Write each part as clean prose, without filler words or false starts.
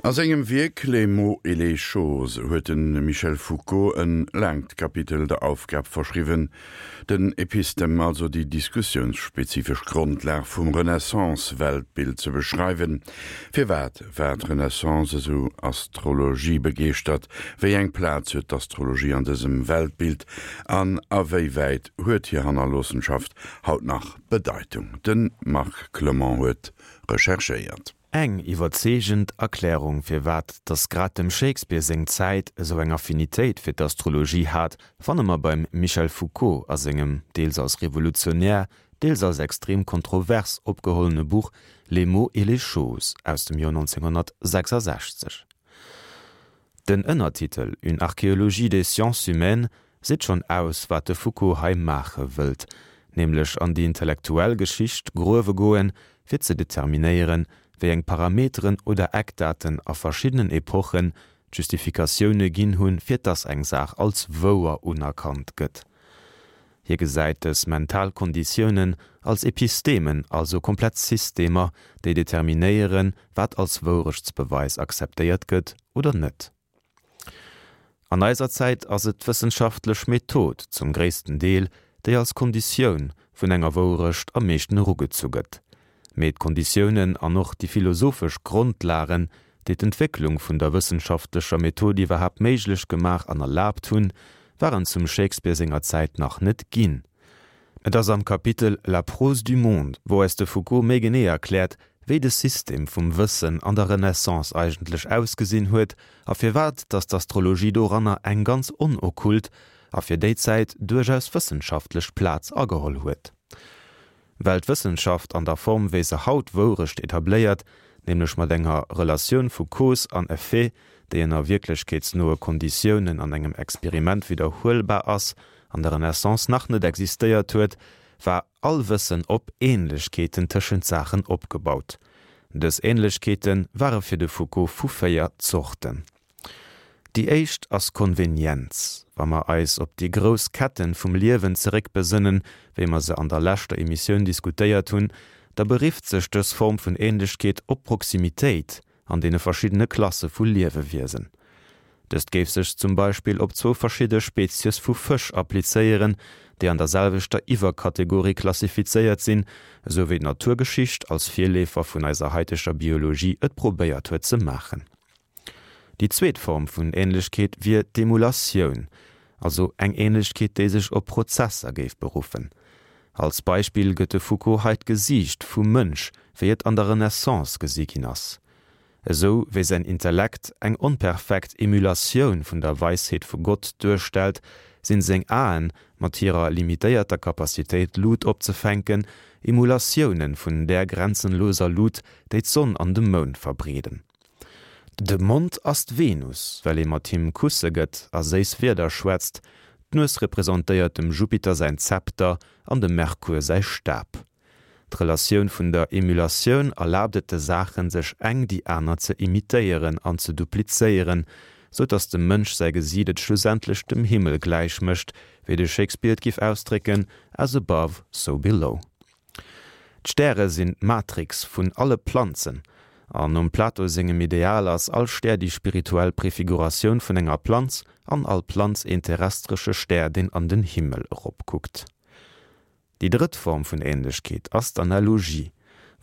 A sengem Wierk Les mots et les choses huet de Michel Foucault e laangt Kapitel der Aufgab verschriwwen, den Epistem, also déi diskussiounsspezifesch Grondlag vum Renaissance-Weltbild ze beschreiwen. Firwat war d'Renaissance esou astrologiebegeeschtert? Wéi eng Plaz huet d'Astrologie an dësem Weltbild an a wéi wäit huet hir Hannerloossenschaft haut nach Bedeitung? De Marc Clement huet recherchéiert. Eng iwwerzeegend Erklärung firwat dass grad dem Shakespeare seng Zäit esou eng Affinitéit fir d'Astrologie hat, fanne mer beim Michel Foucault a sengem deels als revolutionär, deels als extrem kontrovers opgehollene Buch Les mots et les choses aus dem Joer 1966. Den Ënnertitel Une archéologie des sciences humaines seet schonn aus, wat de Foucault hei maache wëllt, nämlech an déi intellektuell Geschicht gruewe goen, fir ze determinéieren, wéi eng Parameteren oder Eckdaten a verschiddenen Epochen d'Justifikatioune ginn hunn, fir dass eng Saach als wouer unerkannt gëtt. Hie gesäit dës mental Konditiounen als Epistemen, also komplett Systemer, déi determinéieren, wat als Wourechtsbeweis akzeptéiert gëtt oder net. An eiser Zäit ass et d'wëssenschaftlech Method zum gréissten Deel, déi als Konditioun vun enger Wourecht am meeschten erugezu gëtt. Mee d'Konditiounen an och déi philosophesch Grondlagen, déi d'Entwécklung vun der wëssenschaftlecher Method iwwerhaapt méiglech gemaach an erlaabt hunn, waren zum Shakespeare senger Zäit nach net ginn. Et ass am Kapitel La prose du monde, wou eis de Foucault méi genee erkläert, wéi de System vum Wëssen an der Renaissance eigentlech ausgesinn huet a firwat datt d'Astrologie doranner eng ganz onokkult a fir déi Zäit duerchaus wëssenschaftlech Plaz ageholl huet. Well d'Wëssenschaft an der Form wéi se haut Wourecht etabléiert, nämlech mat enger Relatioun vu Cause an Effet, déi ënner wierklechkeetsnoe Konditiounen an engem Experiment widderhuelbar ass, an der Renaissance nach net existéiert huet, war all Wëssen op Ähnlechkeeten tëschent Saachen opgebaut. Dës Ähnlechkeete ware fir de Foucault vu 4 Zorten. Déi éischt ass Konvenienz. Wa mer eis op déi grouss Ketten vum Liewen zeréckbesënnen, wéi mer se an der leschter Emissioun diskutéiert hunn, da berifft sech dës Form vun Ähnlechkeet op Proximitéit an deene verschiddene Klasse vu Liewewiesen. Dëst géif sech zum Beispill op zwou verschidde Spezies vu Fësch applizéieren, déi an der selwechter Iwwerkategorie klassifizéiert sinn, esou wéi d'Naturgeschicht als Virleefer vun eiser haiteger Biologie et probéiert huet ze maachen. Déi zweet Form vun Ähnlechkeet wier d'Emulatioun, also eng Ähnlechkeet déi sech op Prozesser géif beruffen. Als Beispill gëtt de Foucault hei d'Gesiicht vum Mënsch, wéi et an der Renaissance gesi ginn ass. Esou wéi säin Intellekt eng onperfekt Emulatioun vun der Weisheet vu Gott duerstellt, sinn seng Aen, mat hirer limitéierter Capacitéit Lut opzefänken, Emulatioune vun där grenzenloser Lut, déi d'Sonn an de Mound verbreeden. De Mond ass d'Venus, well ee mat him Kusse gëtt a séiss Wierder schwätzt. D'Nues representéiert dem Jupiter säin Zepter an dem Merkur säi Stab. D'Relatioun vun der Emulatioun erlaabt et de Saachen, sech eng déi aner ze imitéieren an ze duplizéieren, sou datt dem Mënsch säi Gesiit et schlussendlech dem Himmel gläich mécht, wéi de Shakespeare et giff ausdrécken, As above, so below. D'Stäre sinn d'Matrix vun alle Planzen, an nom Plato sengem Ideal ass all Stär déi spirituell Prefiguratioun vun enger Planz an all Planz een terrestresche Stär deen an den Himmel eropkuckt. Déi drëtt Form vun Ähnlechkeet ass d'Analogie,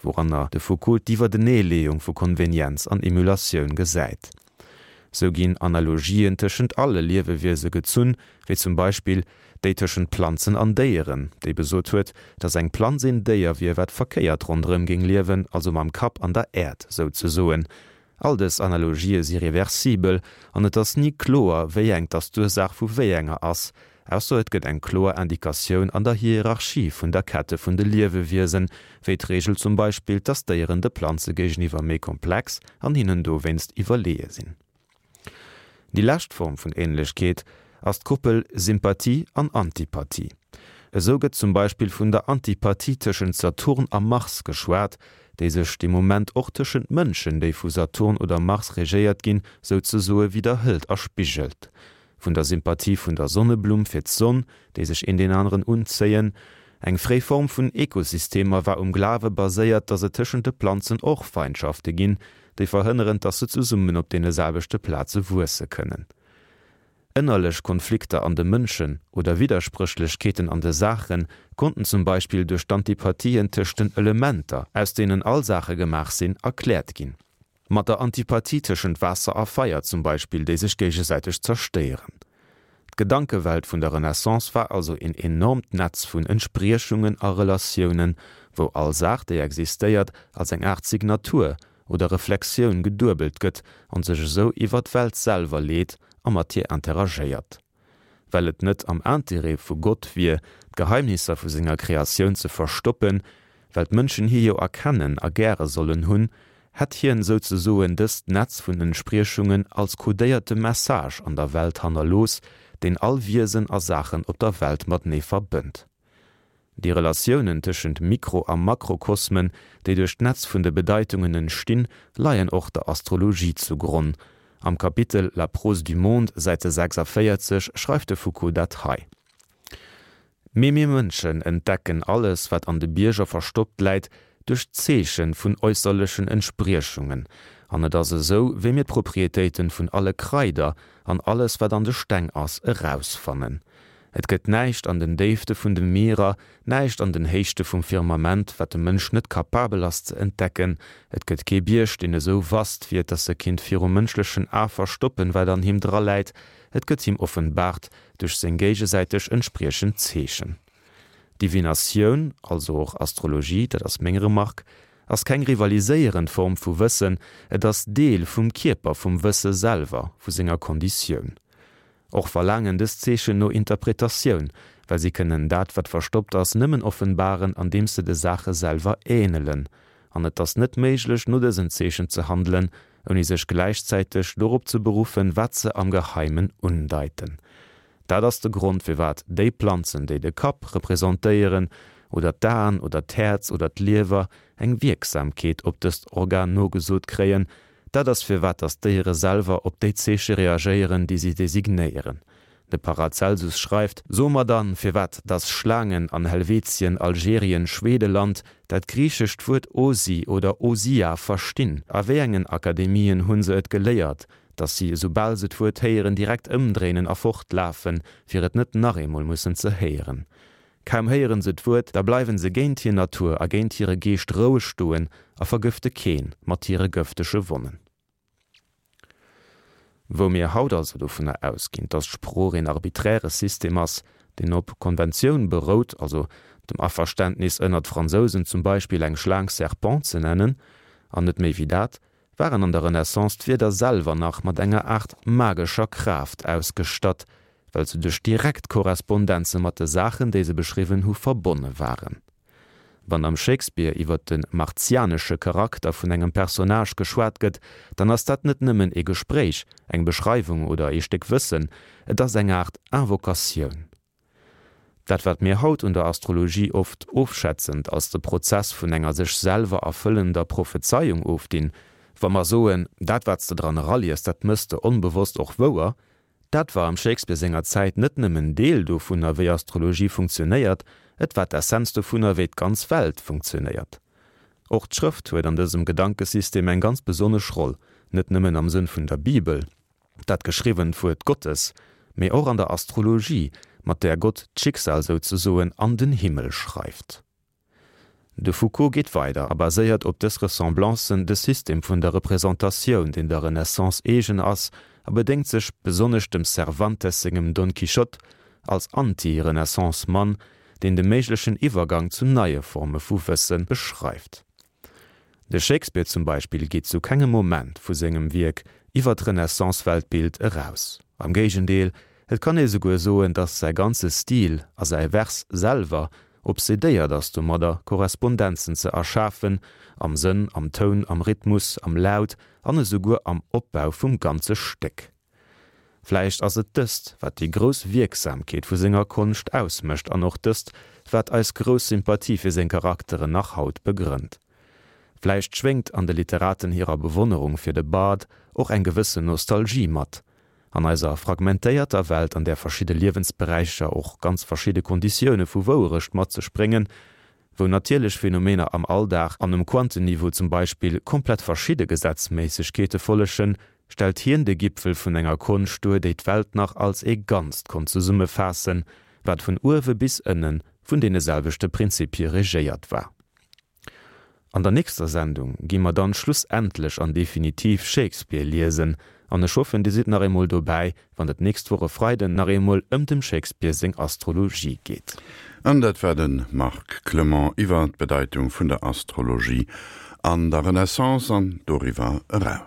wouranner de Foucault d'Iwwerdeneeleeung vu Konvenienz an Emulatioun gesäit. Sou ginn Analogien tëschent alle Liewewiese gezunn, wéi zum Beispill déi tëschent Planzen an Déieren, déi besot huet, datt eng Planz een Déier wier, wat verkéiert ronderëm géing liewen, also mam Kapp an der Äerd souzesoen. All dës Analogië si reversibel an et ass ni kloer, wéi eng dass d'Ursaach vu wéi enger ass, ausser et gëtt eng kloer Indikatioun an der Hierarchie vun der Kette vun de Liewewiesen, wéi d'Reegel zum Beispill, dass Déieren de Planze géigeniwwer méi komplex an hinnen dowéinst iwwerleeë sinn. Déi lescht Form vun Ähnlechkeet ass d'Koppel Sympathie an Antipathie. Esou gëtt zum Beispill vun der Antipathie tëschent Saturn a Mars geschwat, déi sech dee Moment och tëschent Mënschen, déi vu Saturn oder Mars regéiert ginn, souzesoe widderhëlt a spigelt. Vun der Sympathie vun der Sonneblumm fir d'Sonn, déi sech een deen aneren unzéien. Eng fréi Form vun Ekosystemer war um Glawe baséiert, datt et tëschent de Planzen och Feindschafte ginn. déi verhënneren, dass se zesummen op deene selwechte Plaze wuesse kënnen. Ënnerlech Konflikter an de Mënschen oder Widderspréchlechkeeten an de Saache konnten zum Beispill duerch d'Antipathien tëscht den Elementer, aus deenen all Saache gemaach sinn, erkläert ginn. Mat der Antipathie tëschent Waasser a Feier zum Beispill, déi sech géigesäiteg zerstéieren. D'Gedankewelt vun der Renaissance war also een enormt Netz vun Entspriechungen a Relatiounen, wou all Saach, déi existéiert, als eng Aart Signatur oder Reflexioun geduebelt gëtt an sech esou iwwer d'Welt selwer leet a mat hir interagéiert. Well et net am Interêt vu Gott wier, d'Geheimnisser vu senger Kreatioun ze verstoppen, well d'Mënschen hie jo erkennen a gäre sollen hunn, hätt hien souzesoen dëst Netz vun Entspriechungen als kodéierte Message an der Welt hannerlooss, deen all Wiesen a Saachen op der Welt matenee verbënnt. Déi Relatiounen tëschent Mikro a Makrokosmen, déi duerch d'Netz vun de Bedeitungen entstinn, leien och der Astrologie zu Gronn. Am Kapitel La prose du monde, Säite 46, schreift de Foucault dat hei, Mee mir Mënschen entdecken alles, wat an de Bierger verstoppt läit, duerch d'Zeeche vun äusserlechen Entspriechungen. An et ass esou, wéi mir d'Proprietéiten vun alle Kraider an alles, wat an de Steng ass, erausfannen. Et gëtt näischt an den Déifte vun de Mierer, näischt an den Héichte vum Firmament, wat de Mënsch net kapabel ass ze entdecken. Et gëtt kee Bierg, deen esou vast wier, dass e kinnt virum mënschlechen A verstoppen, wat an him draläit. Et gëtt him offenbart duerch seng géigesäiteg entspriechend Zeechen. Divinatioun, also och Astrologie, dat ass meng Remark, ass keng rivaliséierend Form vu Wëssen, et ass Deel vum Kierper vum Wësse selwer, vu senger Konditioun. Och verlaangen dës Zeechen no Interpretatioun, well si kënnen dat, wat verstoppt ass, nëmmen offenbaren, andeems se de Saache selwer änelen. An et ass net méiglech, no dësen Zeechen ze handelen, ouni sech gläichzäiteg dorop ze beruffen, wat se am Geheimen undeiten. Dat ass de Grond, firwat déi Planzen, déi de Kapp representéieren, oder d'Aen oder d'Häerz oder d'Liewer, eng Wierksamkeet op dëst Organ nogesot kréien, Dat ass firwat dass d'Déiere selwer op déi Zeeche reagéieren, déi si designéieren. De Paracelsus schreift, So mer dann, firwat dass Schlaangen an Helvetien, Algerien, Schwedeland dat griichescht Wuert Osi oder Osia verstinn? A wéi engen Akademien hunn se et geléiert, dass si, esoubal se d'Wuert héieren, direkt ëmdréinen a fortlafen, fir et net nach eemol mussen ze héieren? Kaum héieren se d'Wuert, da bleiwen se géint hir Natur a géint hire Geescht roueg stoen a vergëfte keen mat hire gëftege Wonnen. Wou mir haut also dovunner ausginn, dass d'Sprooch een arbiträre System ass, deen op Konventioun berout, also dem Averständnis ënnert Fransousen zum Beispill eng Schlaang Serpent ze nennen, an net méi wéi dat, waren an der Renaissance d'Wierder selwer nach mat enger Aart magescher Kraaft ausgestatt, well se duerch direkt Korrespondenze mat de Saachen, déi se beschriwwen hu, verbonne waren. Wann am Shakespeare iwwer de martianesche Charakter vun engem Personnage geschwat gëtt, dann ass dat net nëmmen ee Gespréich, eng Beschreiwung oder ee Stéck Wëssen, et ass eng Aart Invocatioun. Dat wat mir haut un der Astrologie oft ofschätzend als de Prozess vun enger sech selwer erfëllender Prophezeiung ofdinn, wa mer soen, dat wat s de dran eraliest, dat mëss de onbewosst och wouer, dat war am Shakespeare senger Zäit net nëmmen Deel dovunner wéi Astrologie funktionéiert, et war d'Essenz dovunner wéi d'ganz Welt funktionéiert. Och d'Schrëft huet an dësem Gedankesystem eng ganz besonnesch Roll, net nëmmen am Sënn vun der Bibel, dat geschriwwent Wuert Gottes, mee och an der Astrologie, mat där Gott d'Schicksal souzesoen an den Himmel schreift. De Foucault geet weider a baséiert op dës Ressemblancen de System vun der Representatioun, deen der Renaissance eegen ass, a bedéngt sech besonnesch dem Cervantes sengem Don Quichotte als Anti-Renaissance-Mann, deen de méiglechen Iwwergang zu neie Forme vu Wësse beschreift. De Shakespeare zum Beispill geet zu kengem Moment vu sengem Wierk iwwer d'Renaissance-Weltbild eraus. Am Géigendeel, et kann ee souguer soen, datt säi ganze Stil a säi Vers selwer obsedéiert ass domadder, Korrespondenzen ze erschafen, am Sënn, am Toun, am Rhythmus, am Laut an esouguer am Opbau vum ganze Stéck. Vläicht ass et dëst, wat déi grouss Wierksamkeet vu senger Konscht ausmécht an och dëst, wat eis grouss Sympathie fir seng Charakteren nach haut begrënnt. Vläicht schwéngt an de Literaten hirer Bewonnerung fir de Bard och eng gewëssen Nostalgie mat. An eiser fragmentéierter Welt, an där verschidde Liewensberäicher och ganz verschidde Konditioune vu Wouerecht mat sech bréngen,. Wou natierlech Phänomener am Alldag an um Quantenniveau zum Beispill komplett verschidde Gesetzméissegkeete follegen, stellt hien de Gipfel vun enger Konscht duer, déi d'Welt nach als ee Ganzt konnt zesummefaassen, wat vun uewe bis ënne vun deene selwechte Prinzipie regéiert war. An der nächster Sendung gi mer dann schlussendlech an definitiv Shakespeare liesen, an ech hoffen dir sidd nach eemol dobäi, wann et nächst Woch e Freiden nach eemol ëm dem Shakespeare seng Astrologie geet. An dat war de Marc Clement iwwer d'Bedeitung vun der Astrologie an der Renaissance an doriwwer eraus.